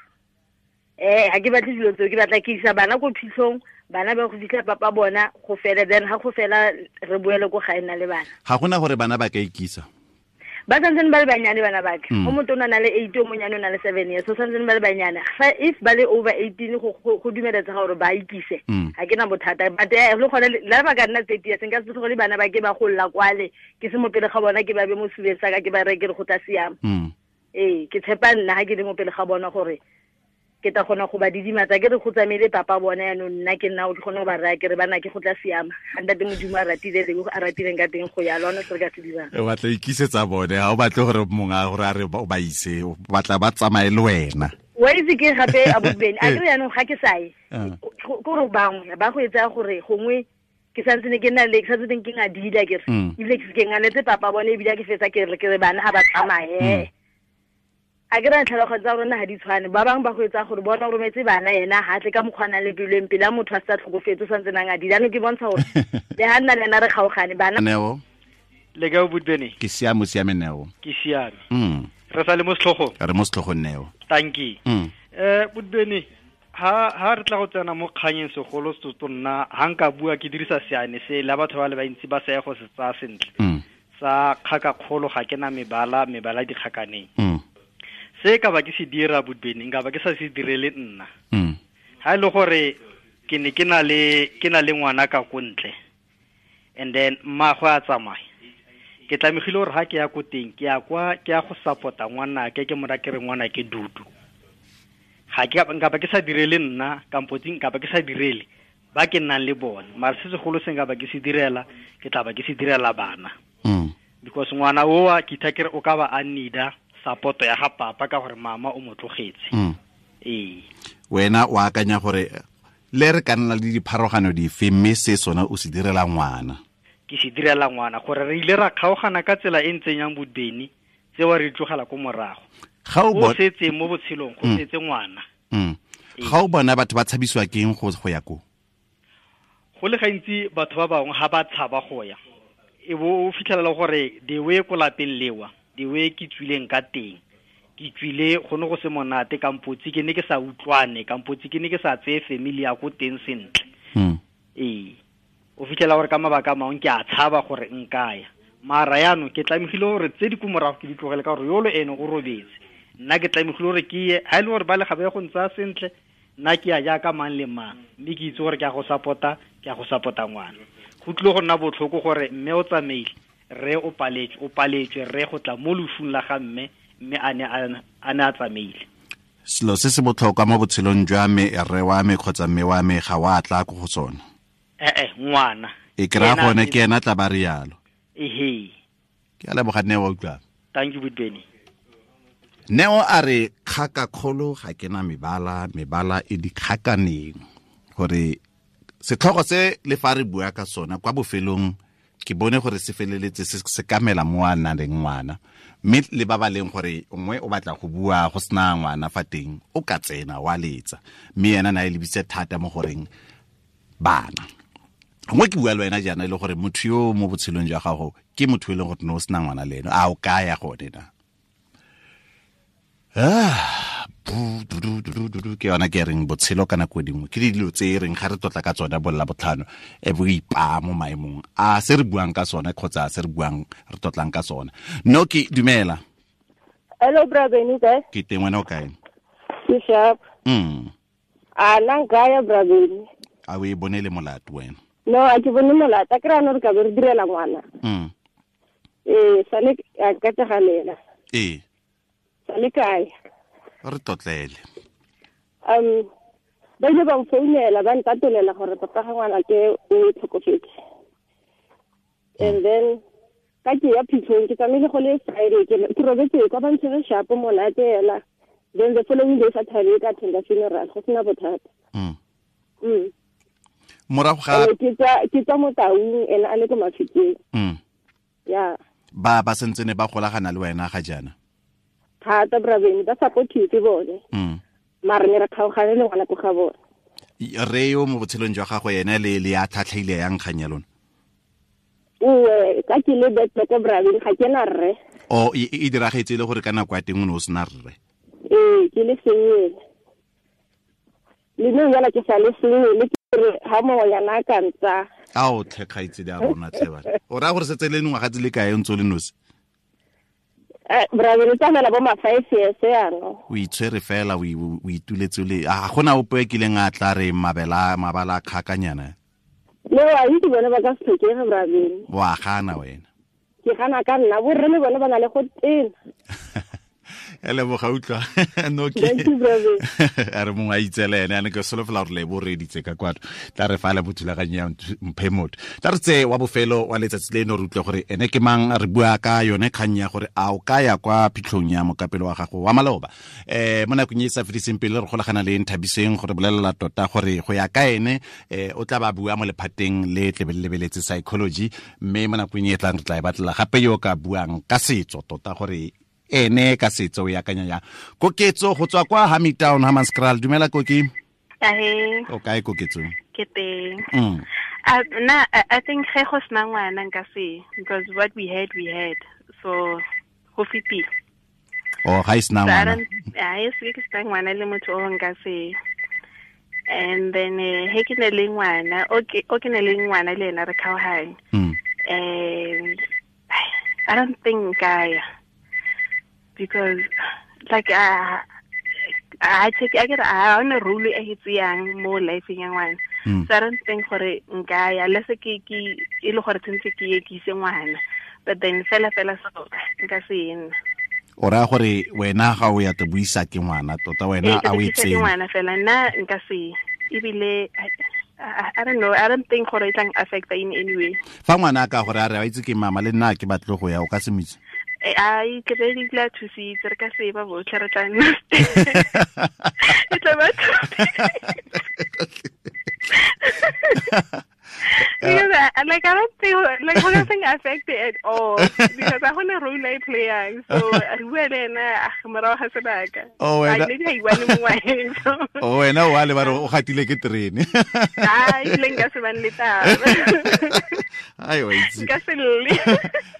Ga ke batle dilo tseo ke batla ke isa bana ko phitlhong bana ba go fitlha papa bona go fela then ga go fela re boele ko gae nna le bana. Ga gona gore bana ba ka ikisa? Ba santsane ba le banyane bana ba ka. O motona na le 8 o monyane o na le 7 years so santsane ba le banyane. Fa if ba le over 18 go dumeletsa gore ba ikise ga ke na bothata but le gone la ba ka nna 30 years nka se tlogele bana ba ke ba golla kwale ke se mo pele ga bona ke ba be mo sebeng sa ka ke ba reke re go tla siama. Ee ke tshepa nna ga ke le mo pele ga bona gore ke ta gona go ba didimatsa ke re go tsamaile papa bona yaanong nna ke nna o ke kgone go ba raya ke re bana ke go tla siama ga ntate Modimo a ratile le a ratileng ka teng go ya lona se re ka se dirang. O batla ikisetsa bone ga o batle gore mongwe a gore a re o ba ise o batla ba tsamaye le wena. Wa itse ke gape a Bobeni a kere yaanong ga ke sa ye kore bangwe ba go etsa gore gongwe ke santse ne ke nna le ke santse ke ngadila ke re ebile ke ke nganetse papa bone ebile ke fetsa ke re ke re bana ga ba tsamaye. A ke ra tlhalogo tsa rona ga di tshwane ba bangwe ba go etsa gore bona o rometse bana ena ha tle ka mokgwana le peleng pele a motho a sa tlhokofetse o santse nang a di jaanong ke bontsha gore le ha nna le ena re kgaogane bana. Neo le kae Botubeni? Ke siame siame Neo. Ke siame. Re sa le mo setlhogong? Re mo setlhogong Neo. Tanki. Botubeni ha re tla go tsena mo kganyeng segolo se nna ha nka bua ke dirisa seane se la batho ba le bantsi ba sa ye go se tsaya sentle. Sa kgaka kgolo ga ke na mebala mebala dikgakaneng. Se ka ba ke se dira Botubeni nka ba ke sa se direle nna. Ha ile gore ke ne ke na le ngwana ka ko ntle and then mmagwe a tsamaya ke tlamegile gore ha ke ya ko teng ke ya kwa ke ya go support-a ngwana ke ke mora ke re ngwana ke dudu. Ga ke nka ba ke sa direle nna kampo nka ba ke sa direle ba ke nnang le bone mara se segolo se nka ba ke se direla ke tla ba ke se direla bana. Because ngwana oa ke itha ke re o ka ba a need-a support ya ga papa ka gore mama o mo tlogetse. Ee. Wena o akanya gore le re ka nna le dipharogano dife mme se sona o se direla ngwana? Ke se direla ngwana gore re ile ra kgaogana ka tsela e ntseng yang Botubeni tsewa re tlogela ko morago. Ga o setse mo botshelong go setse ngwana. Ga o bona batho ba tshabisiwa keng go ya ko? Go le gantsi batho ba bangwe ga ba tshaba go ya, e bo o fitlhelela gore the way ko lapeng lewa, the way ke tswileng ka teng, ke tswile go ne go se monate, kampotsi ke ne ke sa utlwane, kampotsi ke ne ke sa tseye family ya ko teng sentle. Ee, o fitlhela gore ka mabaka a mangwe ke a tshaba gore nkaya, mara yaanong ke tlamegile gore tse di ko morago ke di tlogele ka gore yolo ene o robetse, nna ke tlamegile gore ke ye. Ha e le gore ba le ga ba ye go ntsaya sentle, nna ke ya jaaka mang le mang, mme ke itse gore ke a go support-a, ke a go support-a ngwana. Go tlile go nna botlhoko gore mme o tsamaile, rre o paletswe, rre go tla mo losung la ga mme, mme a ne a tsamaile. Selo se se botlhokwa mo botshelong jwa me, rre wa me kgotsa mme wa me ga wa tla ko go sone. Ngwana. E kry-a gone ke ena tla ba rialo. Ehe. Ke a leboga Neo, utlwa. Thank you, Beni. Neo a re kgaka kgolo ga ke na mebala, mebala e dikgakaneng. Gore setlhogo se le fa re bua ka sona kwa bofelong ke bone gore se feleletse se kamela mo a nang le ngwana, mme le ba ba leng gore nngwe o batla go bua go sena ngwana fa teng, o ka tsena wa letsa, mme ena na e lebise thata mo goreng bana. Gongwe ke bua le wena jaana e le gore motho yo mo botshelong jwa gago ke motho e leng gore ne o sena ngwana le ene, a o kaya gone na? Ke yona ke reng botshelo ka nako dingwe ke dilo tse e reng ga re tlotla ka tsone bolla botlhano e bo ipaa mo maemong a se re buang ka sone kgotsa se re buang re tlotlang ka sone. No ke dumela. Hello brother, ni kae? Ke teng, wena o kae? Ke sharp. A nna nkaya brother. A o e bone le molato wena? No, a ke bone molato, a kry-a no re ka be re direla ngwana. Ee, sale a ka tsegalela. Ee. Sale kae? Re tlotlele. Ba ile ba mfounela ba ntatolela gore papa ga ngwana ke o tlhokofetse. And then ka ke ya phitlhong ke tsamaile go le Friday, ke robetse kwa ba ntshwere shapo monate hela. Then the following day Saturday ka attenda funeral, go sena bothata. Morago ga ke tswa mo Taung, ene a le ko Mafikeng. Yeah. Ba sentse ne ba golagana le wena ga jaana? Thata brabeng, ba supportive bone. Mare ne re kgaogane le ngwana ko ga bone. Re yo mo botshelong jwa gago ene le ya tlhatlhaile yang kgang ya lona? Uwe, ka ke le betle ko brabeng, ga ke na rre. O e diragetse le gore ka nako ya teng o ne o sena rre? Ee, ke le sengwe. Le nna jala ke sa le sengwe, le ke re ha mongwenyana a ka ntsa. Ao tlhe kgaitsedi a rona tlhe bana. O raya gore setse le ngwaga tse le kae o ntse o le nosi? Brother, re tsamaela bo ma 5 years yaanong. O itshwere fela, o ituletse le a gona ope e kileng a tla re mabala a kgakanyana? Le wa itse bone ba ka se tlhokege brother. Wa gana wena? Ke gana ka nna, borre le bone ba na le go tena. Leboga utlwa. No ke. A re mongwe a itsele ene, a ne ke solofela gore le bo reditse ka kwano. Tla re fa le bothulaganyo ya mphe motho. Tla re tse wa bofelo wa letsatsi leno re utlwe gore ene ke mang, re bua ka yone kgang ya gore a o ka ya kwa phitlhong ya mokapelo wa gago wa maloba. Mo nakong e sa fediseng pele re golagana le Nthabiseng gore bolelela tota gore go ya ka ene o tla ba bua mo lephateng le tlebe le lebeletse psychology, mme mo nakong e tlang re tla e batlela gape yo ka buang ka setso tota gore ene ka setso o akanya ya. Koketso go tswa kwa Hamilton Hammanskraal, dumela Koki. Ahe. O kae Koketso? Ke teng. Na I think ge go sena ngwana nka se, because what we had so go fetile. Oh, ga e sena ngwana. A e se ke sena ngwana le motho o nka se. And then he ke ne le ngwana, o ke ne le ngwana le ena re kgaogane. And I don't think I, because like I take I get I on a rule e tseyang mo life ya ngwana. So I don't think gore nka ya le se ke e le gore tsentse ke ye ke ise ngwana, but then fela so nka se ena. O ra gore wena ga o ya te buisa ke ngwana tota wena a o itseng ngwana fela nna nka se ebile I don't know, I don't think gore e tlang affect in any way. Fa ngwana ka gore a re a itse ke mama le nna ke batle go ya, o ka se mitse? Ai ke be di tla thusitse re ka se ba botlhe re tla nna. E tla ba. Because I don't think like I don't affect it at all because I want a role I play, so re bua le ena morago morago ga sebaka. Maybe I want mongwe. Oh wena wa le ba re o gatile ke terene. Ai le nka se bane le taba. Ai wa itse. Nka se lle.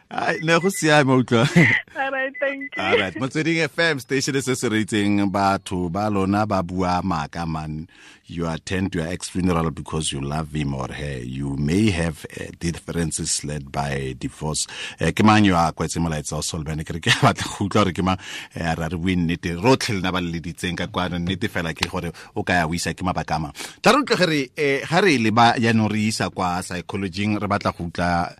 Ai ne go siame utlwa. All right, thank you. All right, Motsweding FM station se se reitseng batho ba lona ba bua maaka man. You attend your ex funeral because you love him or her. You may have differences led by divorce. Ke mang yo a kwetse molaetsa o Solomon ke re ke batla go utlwa gore ke mang ra re bue nnete rotlhe lena ba le leditseng ka kwano nnete fela ke gore o ka ya o isa ke mabaka a mang. Tla re utlwe gore ga re le ba jaanong re isa kwa psychology-ing re batla go utlwa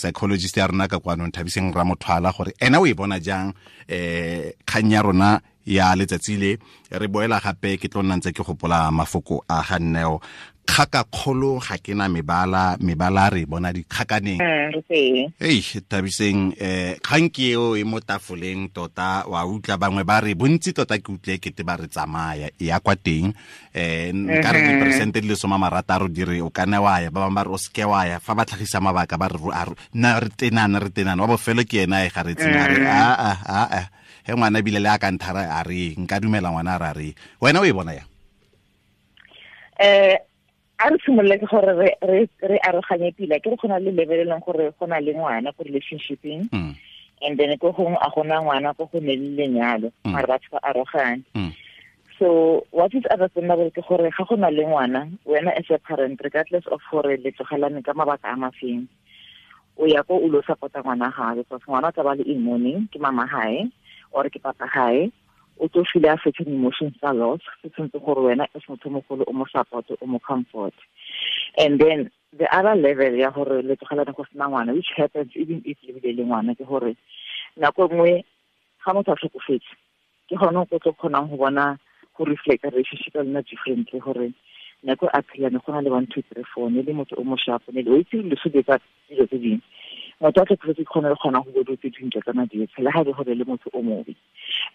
psychologist ya rona ka kwano Nthabiseng Ramothwala gore ena o e bona jang kgang ya rona ya letsatsi le re boela gape ke tlo nna ntse ke gopola mafoko a ga Nneo kgaka kgolo ga ke na mebala mebala re bona dikgakaneng. Ei Thabiseng kgang ke eo e mo tafoleng tota wa utlwa bangwe ba re bontsi tota ke utlwe kete ba re tsamaya e ya kwa teng nka re diperesente di le 60 di re o ka nne wa ya ba bangwe ba re o seke wa ya fa ba tlhagisa mabaka ba re nna re tenana wa bofelo ke ena e ga re tsena re a he ngwana ebile le a ka nthara a re nka dumela ngwana a re wena o e bona yang? A re simolole ke gore re aroganye pila ke re gona le level e leng gore go na le ngwana ko relationshipeng and then ko gongwe a gona ngwana ko go ne le lenyalo mare batho ba arogane. So what is understandable ke gore ga go na le ngwana wena as a parent regardless of gore le tlogelane ka mabaka a mafeng o ya ko o lo support-a ngwana gae because ngwana o tla ba le in mourning ke mama hae or ke papa hae o tlo feel a certain emotions tsa loss se tshwanetse gore wena as motho mogolo o mo support o mo comfort. And then the other level ya gore le tlogelane go sena ngwana which happens even if le bile le ngwana ke gore nako nngwe ga motho a tlhokofetse ke gone o tlo kgonang go bona go reflect relationship ya lona differently gore nako a phela ne go na le 1 2 3 4 ne le motho o mo sharp ne le o itse le so tsa dilo tse dingwe motho a tlhokofetse ke kgone le kgona go bo tse dintle tsa madi tshela ga e gore le motho o mobe.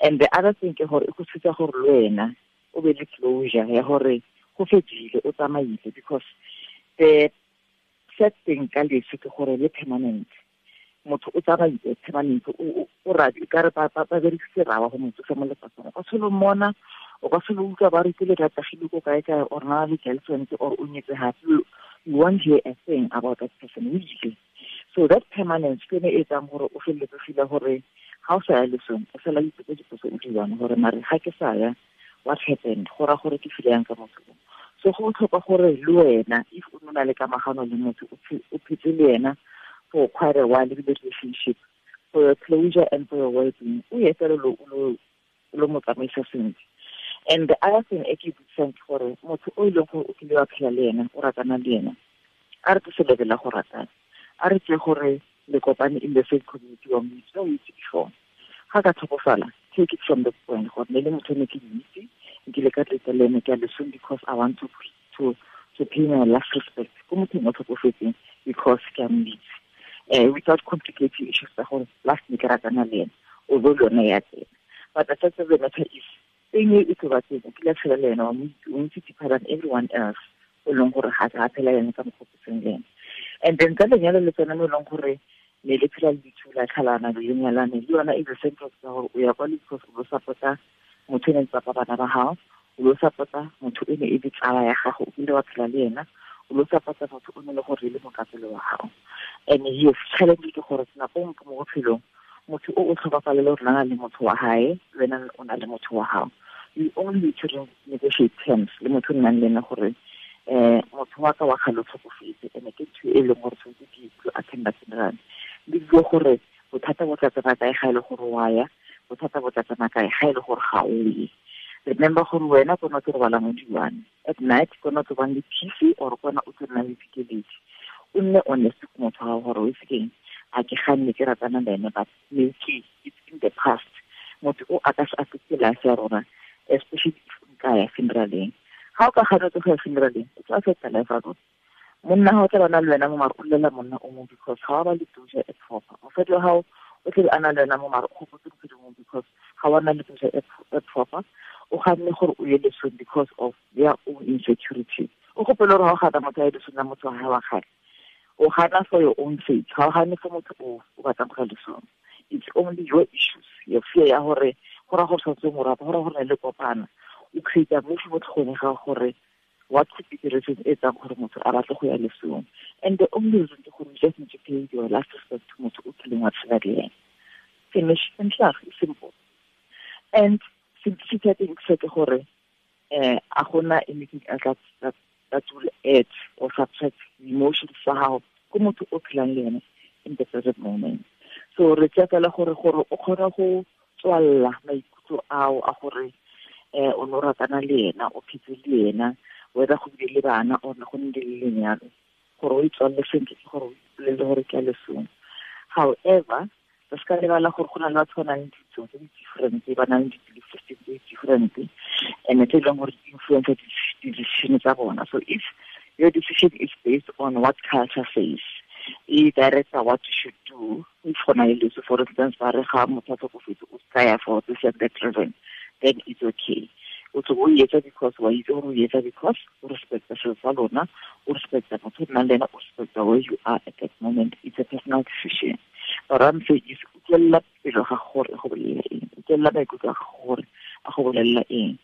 And the other thing ke gore e go thusa gore le wena o be le closure ya gore go fedile o tsamaile because the sad thing ka leso ke gore le permanent motho o tsamaile permanent o radi ka re ba berekise rawa go motho sa mo lefatsheng o ka selo mmona o ka selo utlwa ba re ke le ratagile ko kae kae or na le girlfriend or o nyetse hape you won't hear a thing about that person usually. So that permanence ke ne e etsang gore o feleletse feel gore ga o sa ya lesong o fela ipotsa dipotso o di one gore mare ga ke sa ya what happened go ra gore ke feel yang ka motho. So go botlhokwa gore le wena if o nna le kamagano le motho o phetse le ena for quite a while le relationship for your closure and for your well-being o ye fela lo mo tsamaisa sentle. And the other thing e ke butsang ke gore motho o e leng gore o kile wa phela le ena o ratana le ena a re tlose level la go ratana a re tse gore le kopane in the same community wa mo itse o itse before ga ka tlhokofala take it from the point gore ne le motho ne ke itse nkile ka tletsa le ene ke a lesong because I want to pay my last respect ko mothong o tlhokofetseng because ke a mo itse without complicating issues tsa gore last ne ke ratana le ene although le yone ya tsena. But the fact of the matter is thing e tlo ba teng o kile tshela le ena wa mo itse o ntse deeper than everyone else o leng gore ga a phela ene ka mokgwa o seng le ene. And then ka lenyalo le tsone mo e leng gore ne le phela le dithula tlhalana le lenyalane le yona e the same process gore o ya kwa le because o lo support-a motho e ne ntse bana ba gago o lo support-a motho e ne e le tsala ya gago o kile wa phela le ena o lo support-a motho o ne le gore le mokapelo wa gago. And yes challenge ke gore nako nngwe mo bophelong motho o tlhokafalele gore na le motho wa hae wena o na le motho wa gago you only need to negotiate terms le motho o nnang le ena gore motho wa ka wa kgale o tlhokofetse ene ke ntho e leng gore tshwanetse ke ikutlwe attenda funeral le bue gore bothata bo tla tsena kae ga e le gore wa ya bothata bo tla tsena kae ga e le gore ga o ye. Remember gore wena kona o tlo robala mo di-one at night kona o tlo bang le peace or kona o tlo nnang le dikeledi o nne honest ko motho wa gore o itse keng a ke ganne ke ratana le ene but maybe it's in the past motho o a ka se affecte life ya rona especially if nka ya funeraleng ga o ka ganetse go ya funeraleng o tlo affecta life ya rona monna ga o tla bana le wena mo mare o llela monna o mongwe because ga wa ba le closure e proper mosadi wa gago o tlebe a na le wena mo mare o gopotse ntho dingwe because ga wa na le closure e proper o ganne gore o ye lesong because of their own insecurity o gopele gore ga o gana motho a ye lesong la motho wa gae wa kgale o gana for your own sake ga o gane for motho o batlang go ya lesong. It's only your issues your fear ya gore Go raya gore santse mo rata, go raya gore ne le kopana. O create mo mo tlhogong ga gore what could be the reason e etsang gore motho a batle go ya lesong. And the only reason ke gore you just need to pay your last respect to motho o kileng wa tshela le ene. Finish and klaar, simple. And simplicity ya teng ke gore a gona anything else that will add or subtract the emotions tsa gago ko motho o phelang le ene in the present moment. So re tsaya fela gore o kgone go tswalla maikutlo ao a gore o no ratana le ena, o phetse le ena, whether go bile le bana or go nne le lenyalo, gore o itswalle sentle ke gore o ipolele gore ke a lesong. However, re se ka lebala gore go na le batho ba nang le ditso tse di different, ba nang le di-belief system tse di different, and tse e leng gore di influence di-decision tsa bona. So if your decision is based on what culture says, e directs what you should do, if go na le leso, for instance, ba re ga motho a tlhokofetse o ska ya for this and that reason, then it's okay. O tlo o etsa because wa itse gore o etsa because o respecta selo sa lona, o respecta motho o nnang le ena, o respecta where you are at that moment. It's a personal decision. But I'm saying is utlwelela pelo ga gore go bolelela eng, utlwelela maikutlo a gore a go bolelela eng.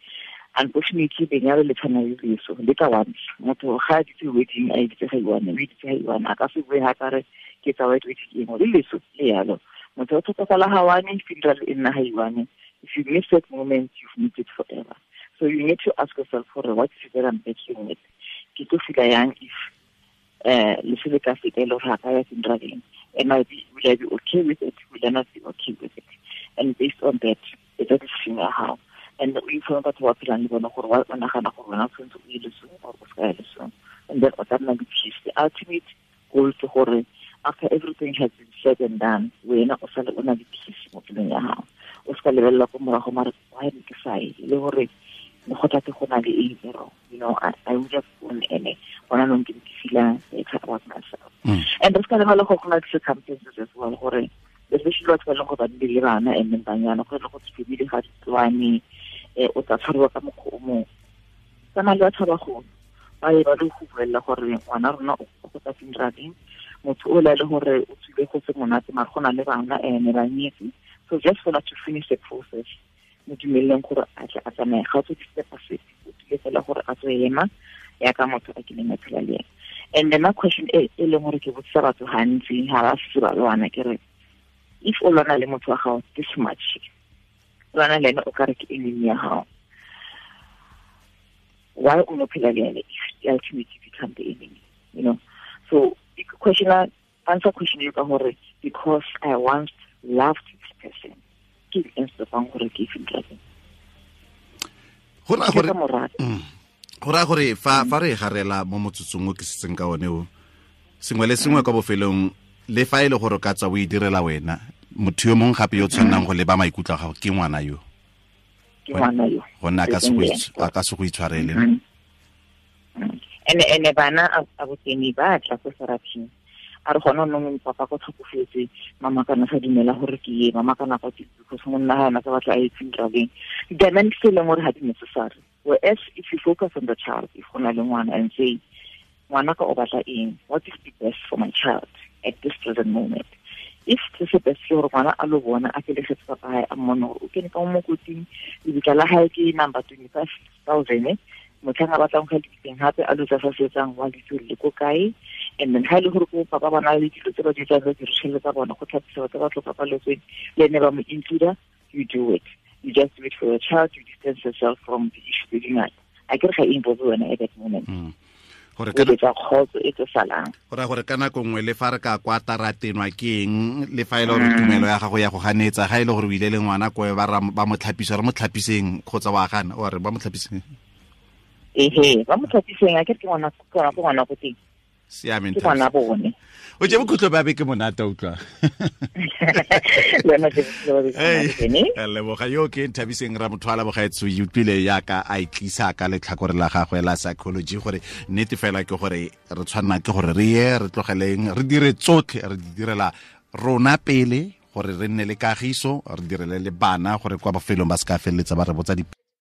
Unfortunately, lenyalo le tshwana le leso, le ka once. Motho ga a ditse wedding, a itse ga iwane, o itse ga iwane, a ka se bue ga ka re ke tsa white wedding eng, le leso le yalo. Motho o tlhokofala ga one, funeral e nna ga iwane. If you miss that moment, you've missed it forever. So you need to ask yourself for what is it that I'm battling with. Ke tlo feel yang if leso le ka feta e le gore ga ka ya funeraleng. Am I be, will I be okay with it? Will I not be okay with it? And based on that, it's a decision how. And o informe batho ba phelang le bona gore wa nagana gore wena o tshwanetse o ye lesong or o se ka ya lesong. And then o tla nna le peace. The ultimate goal ke gore after everything has been said and done, wena o sale o na le peace mo pelong ya gago. O se ka lebelela ko morago mare why ne ke sa ye, le gore le go tla ke go na le eng e wrong. You know, I would have gone ene gona nong ke feel better about myself. And re se ka lebala gore go na le circumstances as well, gore especially batho ba leng gore ba nne le bana and then banyana, go le go family ga di tswane, o tla tshwariwa ka mokgwa o mongwe. Tsamaya le batho ba bagolo, ba ye ba le go buella gore ngwana rona o go tla funeraleng, motho o la le gore o tswile go se monate mare go na le bana ene ba nyetse. So just for to finish the process, mo dumeleleng gore a tle a tsamaye, ga o tswe di-step sepe, o tlile fela gore a tswe ema yaka motho a kileng a phela le ena. And then my question e leng gore ke botsisa batho gantsi ga ba setse ba lwana, ke re if o lwana le motho wa gago this much, o lwana le ene o ka re ke enemy ya gago, why o no phela le ene if ultimately become the enemy, you know? So question answer question eo ka gore because I once loved this person, ke eng se fang gore ke funeraleng. Go raya gore fa re garela mo motsotsong o ke setseng ka one o, sengwe le sengwe kwa bofelong, le fa e le gore ka tswa o e direla wena, motho yo mongwe gape yo tshwannang go leba maikutlo a gago ke ngwana yo. Ke ngwana yo. Gonne a ka se go itshwarele. Ene bana a boteng ba tla ko therapy. A re gona nong papa ko tlhokofetse, mama kana sa dumela gore ke ye, mama kana kwa ke because monna ga ana sa batla a ye funeraleng. Dynamics tse leng gore ga di necessary. Whereas if you focus on the child, if go na le ngwana and say, ngwana ka o batla eng, what is the best for my child at this present moment? If se se best ke gore ngwana a lo bona a felegetse papa hae, a mmone gore o kene ka mo mokoting, lebitla la hae ke number 25,000, motlhang a batlang go ya lebitleng gape a lo tsa sa setsang wa litse le ko kae. And then ha e le gore ko papa ba na le dilo tse ba di etsang, ba di tsa bona go tlhapisa batho ba tlhokafaletsweng, le ene ba mo include, you do it. You just do it for your child, you distance yourself from the issue tse dingata. A ke re ga e involve wena at that moment. Gore ka kgotso e tlo salang. Go raya gore ka nako nngwe le fa re ka kwa taratenwa ke eng, le fa e le gore tumelo ya gago ya go ganetsa, ga e le gore o ile le ngwana ko ba mo tlhapisa, re mo tlhapiseng kgotsa wa gana, o re ba mo tlhapiseng. Ehe, ba mo tlhapiseng, a ke re ke ngwana ko ngwana ko teng. Siameng Ke ngwana bone. O je bokhutlo ba beke monate utlwa. Le wena je bokhutlo ba beke monate bene. Leboga yo ke Nthabiseng Ramothwala bogaetso, e utlwile yaka a itlisa ka letlhakore la gagwe la psychology gore nnete fela ke gore re tshwanna ke gore re ye re tlogeleng re dire tsotlhe re di direla rona pele gore re nne le kagiso, re direle le bana gore kwa bofelong ba se ka feleletsa ba re botsa di